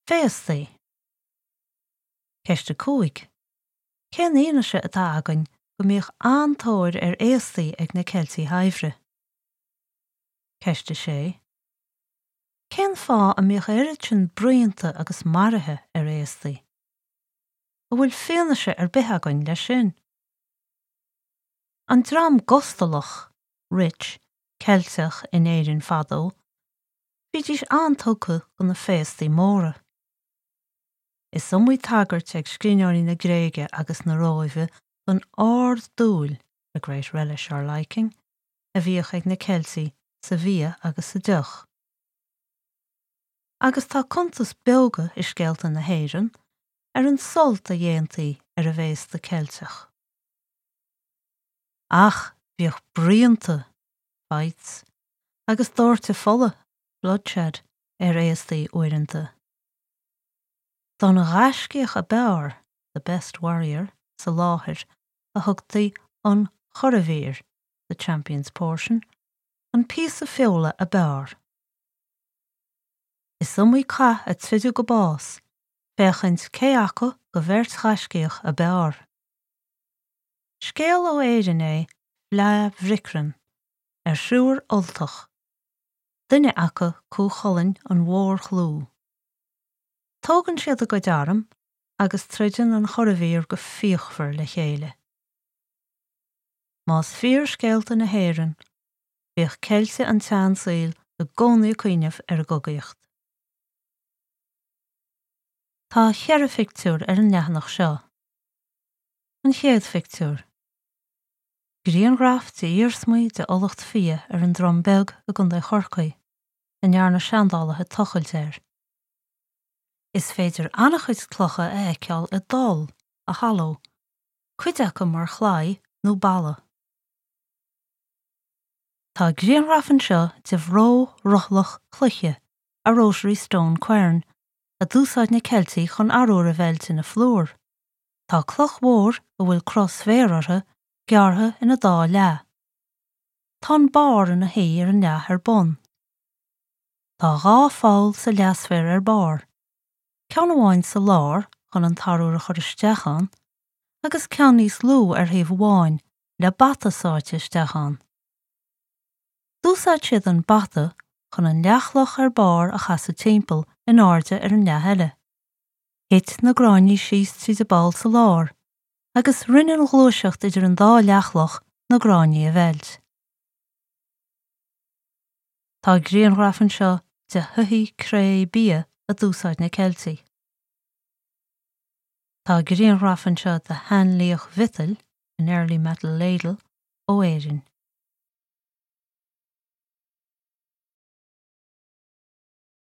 Féastaí. Ceist 5, Cén fhianaise atá againn go mbíodh an-tóir ar fhéastaí ag na Ceiltigh shaibhre? Ceist 6, Cén fáth a mbíodh oiread sin bruíonta agus maruithe ar fhéastaí? An bhfuil fianaise ar bith againn leis sin? An dream gustalach, rich, Ceilteach in Éirinn fadó, Bhídís an-tugtha do na féastaí móra. Is iomaí tagairt ag scríbhneoirí na Gréige agus na Róimhe don ard-dúil, a great relish or liking, a bhíodh ag na Ceiltigh sa bhia agus sa deoch. Agus tá cuntas beoga i scéalta na hÉireann ar an sult a dhéantaí ar an bhféasta Ceilteach. Ach bhíodh bruíonta, fights, agus doirteadh fola, bloodshed, ar fhéastaí uaireanta. Don ghaiscíoch ab fhearr, the best warrior, sa láthair a thugtaí an churadhmhír, the champion's portion, an píosa feola ab fhearr. Is iomaí cath a troideadh go bás féachaint cé acu de bheirt ghaiscíoch ab fhearr. Scéal ó Éirinn é Fleadh Bhricreann ar thriúr Ultach, duine acu Cú Chulainn an mhórchlú. Tógann siad a gcuid arm agus troideann an churadhmhír go fíochmhar le chéile. Más fíor scéalta na hÉireann, bhíodh Ceiltigh an tseansaoil i gcónaí ag cuimhneamh ar an gcogaíocht. Tá cheithre phictiúr ar an leathanach seo. An chéad phictiúr. Grianghraf de iarsmaí de fhulacht fia ar an Drom Beag i gContae Chorcaí, a ndearna seandálaithe tochailt air. Is féidir an-chuid clocha a fheiceáil i dtoll, a hollow, cuid acu mar chlaí nó balla. Tá grianghraf anseo de bhró rothlach cloiche, a rotary stone quern, a d'úsáid na Ceiltigh chun arúr a mheilt ina phlúr. Tá cloch mhór, a bhfuil cruth sféir uirthi, gearrtha ina dá leath. Tá an barr ina shuí ar an leath ar bun. Tá dhá pholl sa leathsféar ar barr, ceann amháin sa lár chun an t-arúr a chur isteach ann agus ceann níos lú ar thaobh amháin le bata sáite isteach ann. D'úsáid siad an bata chun an leathchloch ar barr a chasadh timpeall in airde ar an leath eile. Thit na gráinní síos tríd an bpoll sa lár agus rinne an ghluaiseacht idir an dá leathchloch na gráinní a mheilt. Tá grianghraf anseo de shoithí cré bia a d'úsáid na Ceiltigh. Tá grianghraf anseo de sheanliach mhiotail, an early metal ladle, ó Éirinn.